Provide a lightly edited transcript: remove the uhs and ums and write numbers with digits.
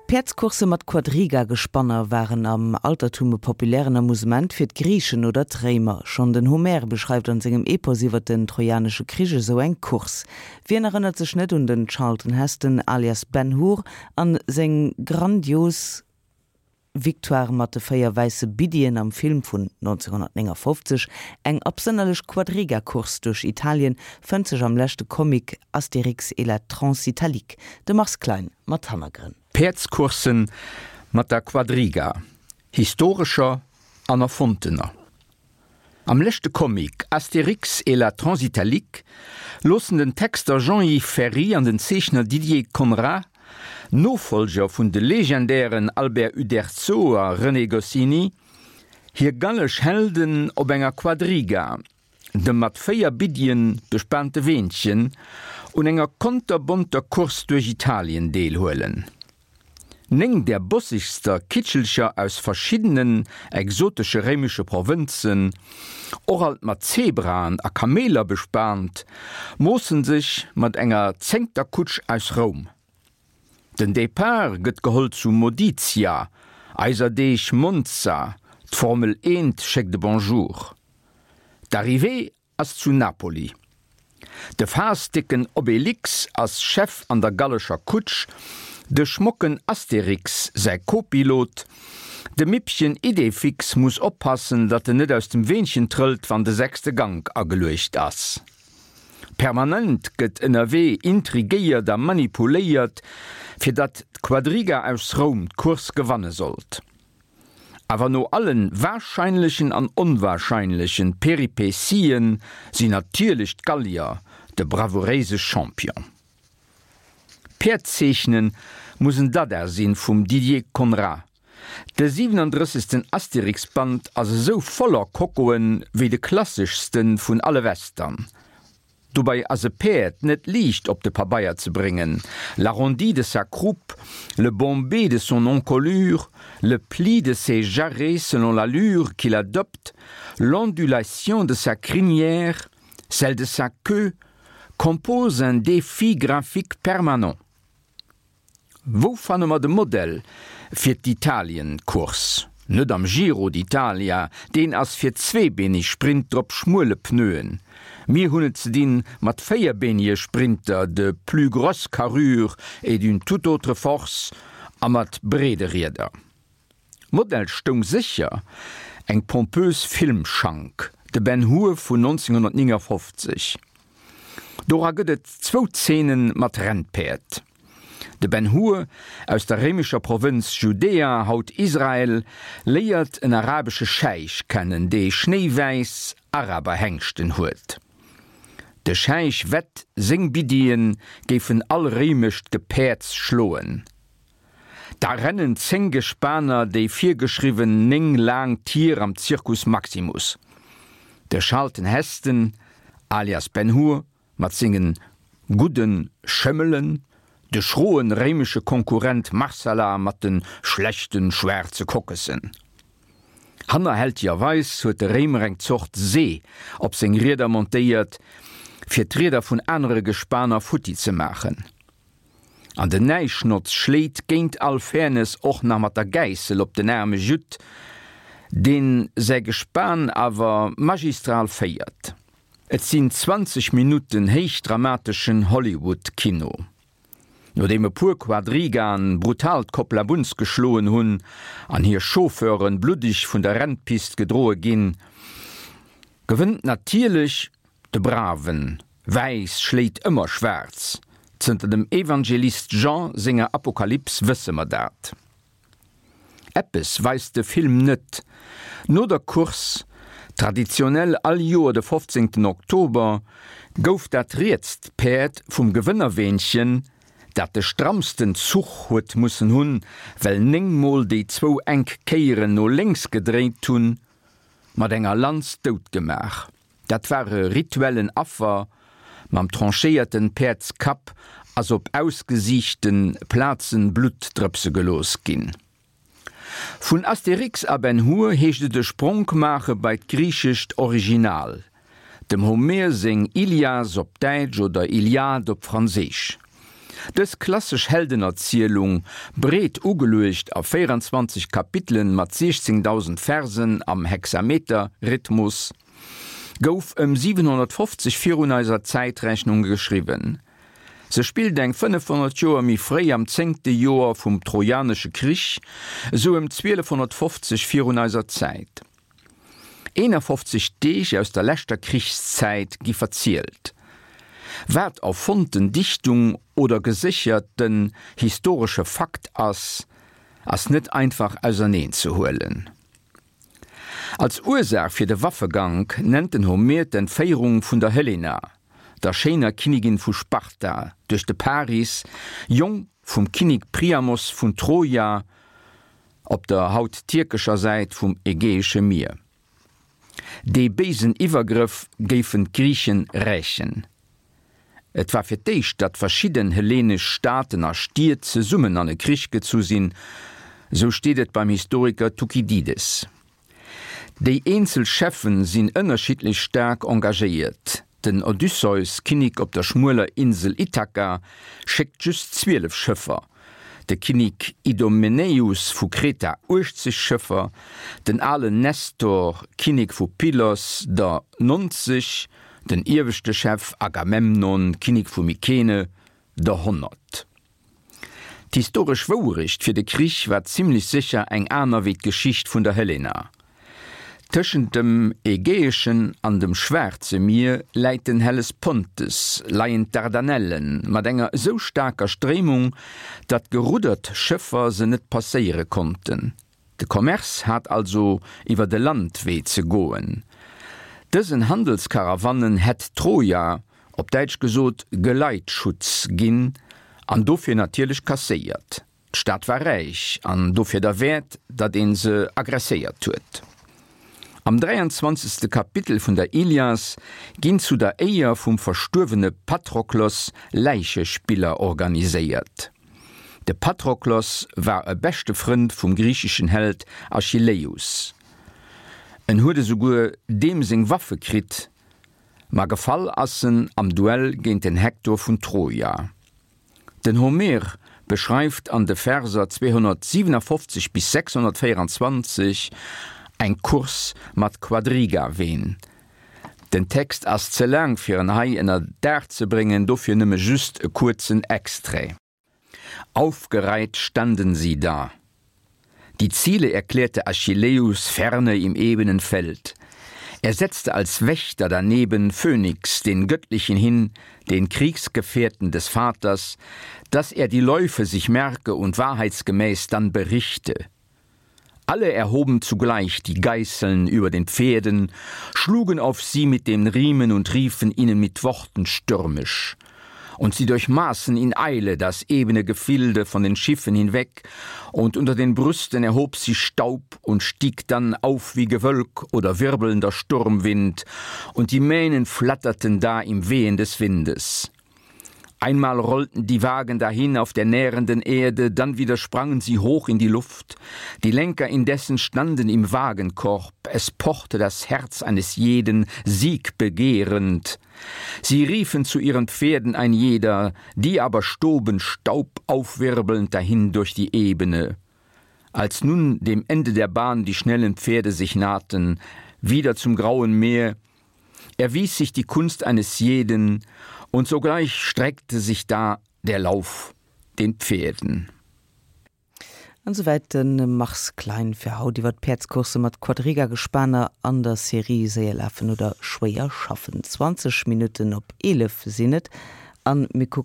Päerdscoursse mat Quadriga-Gespanner waren am Altertum e populären Amusement fir d'Griichen oder d'Réimer. Schonn den Homer beschreift an sengem Epos iwwer den Trojanesche Krich esou eng Course. Wien erënnert sech net un den Charlton Heston alias Ben Hur an seng grandios Victoire mat de 4 wäisse Biddien am Film vun 1959? Eng absënnerlech Quadriga-Course duerch Italien fënnt sech am leschte Comic Astérix et la Transitalique. De Mars Klein mat Hannergrënn. Päerdscourssen mat der Quadriga, historescher an erfonntener. Am leschte Comic Astérix et la Transitalique loossen den Texter Jean-Yves Ferri an den Zeechner Didier Conrad, Nofollger vun de legendären Albert Uderzo a René Goscinny, hir gallesch Helden op enger Quadriga, dem mat 4 Biddien bespaante Weenchen, un enger konterbonter Course duerch Italien deelhuelen. 9 där bossegster Kitschelcher aus verschiddenen exotesche réimesche Provënzen, och alt mat Zebraen a Kameeler bespaant, moossen sech mat enger zéngter Kutsch aus Roum. Den Depart gëtt geholl zu Modicia, eiser Deeg Monza, d'Formel Eent schéckt e Bonjour. D'Arrivée ass zu Napoli. De faasdécken Obelix ass Chef an der gallescher Kutsch, de schmocken Astérix säi Kopilot. De Mippchen Idéfix muss oppassen, datt en net aus dem Weenchen trëllt, wann de sechste Gank ageluecht ass. Permanent gëtt ënnerwee intrigéiert a manipuléiert, fir datt d'Quadriga aus Roum d'Course gewanne sollt. Awer no allen wahrscheinlechen an onwahrscheinlechen Peripetien sinn natierlech d'Gallier de bravouréise Champion. Päerd zeechnen muss en Dada sinn vum Didier Conrad. De 37. Astérix-Band ass esou voller Kokoen wéi de klasseschsten vun alle Western. Dobei ass e Päerd net liicht op de Pabeier ze bréngen, l'arrondi de sa croupe, le bombé de son encolure, le pli de ses jarrets selon l'allure qu'il adopte, l'ondulation de sa crinière, celle de sa queue, composent un défi graphique permanent. Wou fanne mer de Modell fir d'Italien-Course? Net am Giro d'Italia, deen ass fir zweebeeneg Sprinter op schmuele Pneuen. Mir hunn et ze dinn mat véierbeenege Sprinter de plus grosse carrure et d'une toute autre force a mat breede Rieder. Modell stoung sécher eng pompös Filmschank, de Ben Hur vun 1959. Dora gëtt et zwou Zeene mat Rennpäerd. De Ben Hur aus der réimescher Provënz Judäa, haut Israel, léiert en arabesche Scheich kennen, dee schnéiwäiss Araberhengschten huet. De Scheich wett, seng Biddien géifen all réimescht Gepäerds schloen. Da rennen 10 Gespaner déi virgeschriwwen 9 laang Tier am Circus Maximus. De Charlton Heston, alias Ben Hur, mat sengen gudden Schëmmelen, de schroen réimesche Konkurrent Marsala mat den schlechten schwaarze Kokkessen. Hannerhältigerweis huet de Réimer eng Zort See op seng Rieder montéiert, fir d'Rieder vun anere Gespaner futti ze maachen. An den Näischnotz schléit géint all Fairness och nach mat der Gäissel op den aarme Judd, deen säi Gespan awer magistral féiert. Et sinn 20 Minutten héichdramateschen Hollywood-Kino. Nodeem e puer Quadrigaen brutal d'Koppla Bunz geschloen hunn an hir Chauffeuren bluddeg vun der Rennpist gedroe ginn, gewënnt natierlech de Braven. Wäiss schléit ëmmer schwaarz, zënter dem Evangelist Jean senger Apokalyps wësse mer dat. Eppes weist de Film net, No der Course, traditionell all Joer de 15 Oktober, gouf dat rietst Päerd vum Gewënnerweenchen, dat de strammsten Zuch huet mussen hunn, well 9 mol déi zwou enk Kéieren no lénks gedréint hunn, mat enger Lanz dout gemaach. Dat war e rituellen Affer, mam tranchéierten Päerdskapp ass op ausgesiichten Plazen Blutt drëpse gelooss ginn. Vun Astérix a Ben Hur heescht et e Spronk maache bei d'griichescht Original, dem Homer seng Ilias op Däitsch oder Iliade op Franséisch. Dës klassesch Heldenerzielung, breet ugeluecht a 24 Kapitelen mat 16.000 Versen am Hexameter-Rhythmus, gouf ëm 750 virun eiser Zäitrechnung geschriwwen. Se spillt eng 500 Joer méi fréi am zéngte Joer vum Trojanesche Krich, esou ëm 1250 virun eiser Zäit. 51 Deeg aus der leschter Krichszäit gi verzielt. Wat erfonnten Dichtung oder gesécherten historesche Fakt ass, ass net einfach auserneen ze huelen. Als Ursaach fir de Waffegank nennt den Homer d'Entféierung vun der Helena, der schéiner Kinnigin vu Sparta, duerch de Paris, Jong vum Kinnik Priamos vun Troja, op der haut tierkescher Säit vum Ägäesche Mier. Dee béisen Iwwergrëff géifen d'Griichen rächen. Et war fir d'éischt, datt verschidden hellenesch Staaten a Stied zesummen an e Krich gezu sinn, sou steet et beim Historiker Thukydides. Déi eenzel Cheffen sinn ënnerschiddlech staark engagéiert. Den Odysseus, Kinnik op der schmueler Insel Ithaka, schéckt just 12 Schëffer, de Kinnik Idomeneus vu Kreta 80 Schëffer, den alen Nestor, Kinnek vu Pylos, der 90, den ieweschte Chef Agamemnon, Kinnek vu Mykene, der 100. D'historesch Wourecht fir de Krich war zimmlech sécher eng aner wéi d'Geschicht vun der Helena. Tëschent dem Ägäeschen an dem Schwaarze Mier läit den Hellespontes, leien d'Dardanellen mat enger esou staarker Stréimung, datt geruddert Schëffer se net passéiere konnten. De Commerce hat also iwwer de Landwee ze goen. Dësen Handelskarawannen hätt Troja, op Däitsch gesot, Geleitschutz ginn an dofir natierlech kasséiert. D'Stad war räich an dofir derwäert, datt ee se aggresséiert huet. Am 23. Kapitel vun der Ilias ginn zu der Éier vum verstuerwene Patroklos Läichespiller organiséiert. De Patroklos war e beschte Frënd vum griicheschen Held Achilleus. En huet esouguer deem seng Waffe kritt, ma gefall ass en am Duell géint den Hektor vun Troja. Den Homer beschreift an de Verser 257 bis 624 eng Course mat Quadriga-Ween. Den Text ass ze laang fir en hei ënner Daach ze bréngen, dofir nëmme just e kuerzen Extrait. Aufgereiht standen sie da. Die Ziele erklärte Achilleus ferne im ebenen Feld. Er setzte als Wächter daneben Phönix, den Göttlichen hin, den Kriegsgefährten des Vaters, dass er die Läufe sich merke und wahrheitsgemäß dann berichte. Alle erhoben zugleich die Geißeln über den Pferden, schlugen auf sie mit den Riemen und riefen ihnen mit Worten stürmisch. Und sie durchmaßen in Eile das ebene Gefilde von den Schiffen hinweg, und unter den Brüsten erhob sich Staub und stieg dann auf wie Gewölk oder wirbelnder Sturmwind, und die Mähnen flatterten da im Wehen des Windes. Einmal rollten die Wagen dahin auf der nährenden Erde, dann wieder sprangen sie hoch in die Luft. Die Lenker indessen standen im Wagenkorb, es pochte das Herz eines jeden siegbegehrend. Sie riefen zu ihren Pferden ein jeder, die aber stoben Staub aufwirbelnd dahin durch die Ebene. Als nun dem Ende der Bahn die schnellen Pferde sich nahten, wieder zum grauen Meer, erwies sich die Kunst eines jeden, und sogleich streckte sich da der Lauf den Pferden. An souwäit de Mars Klein fir haut iwwer d'Päerdscoursse mat Quadriga-Gespaner an der Serie Séier lafen oder schwéier schaffen. 20 Minutten op 11 sinn et an mir kucken.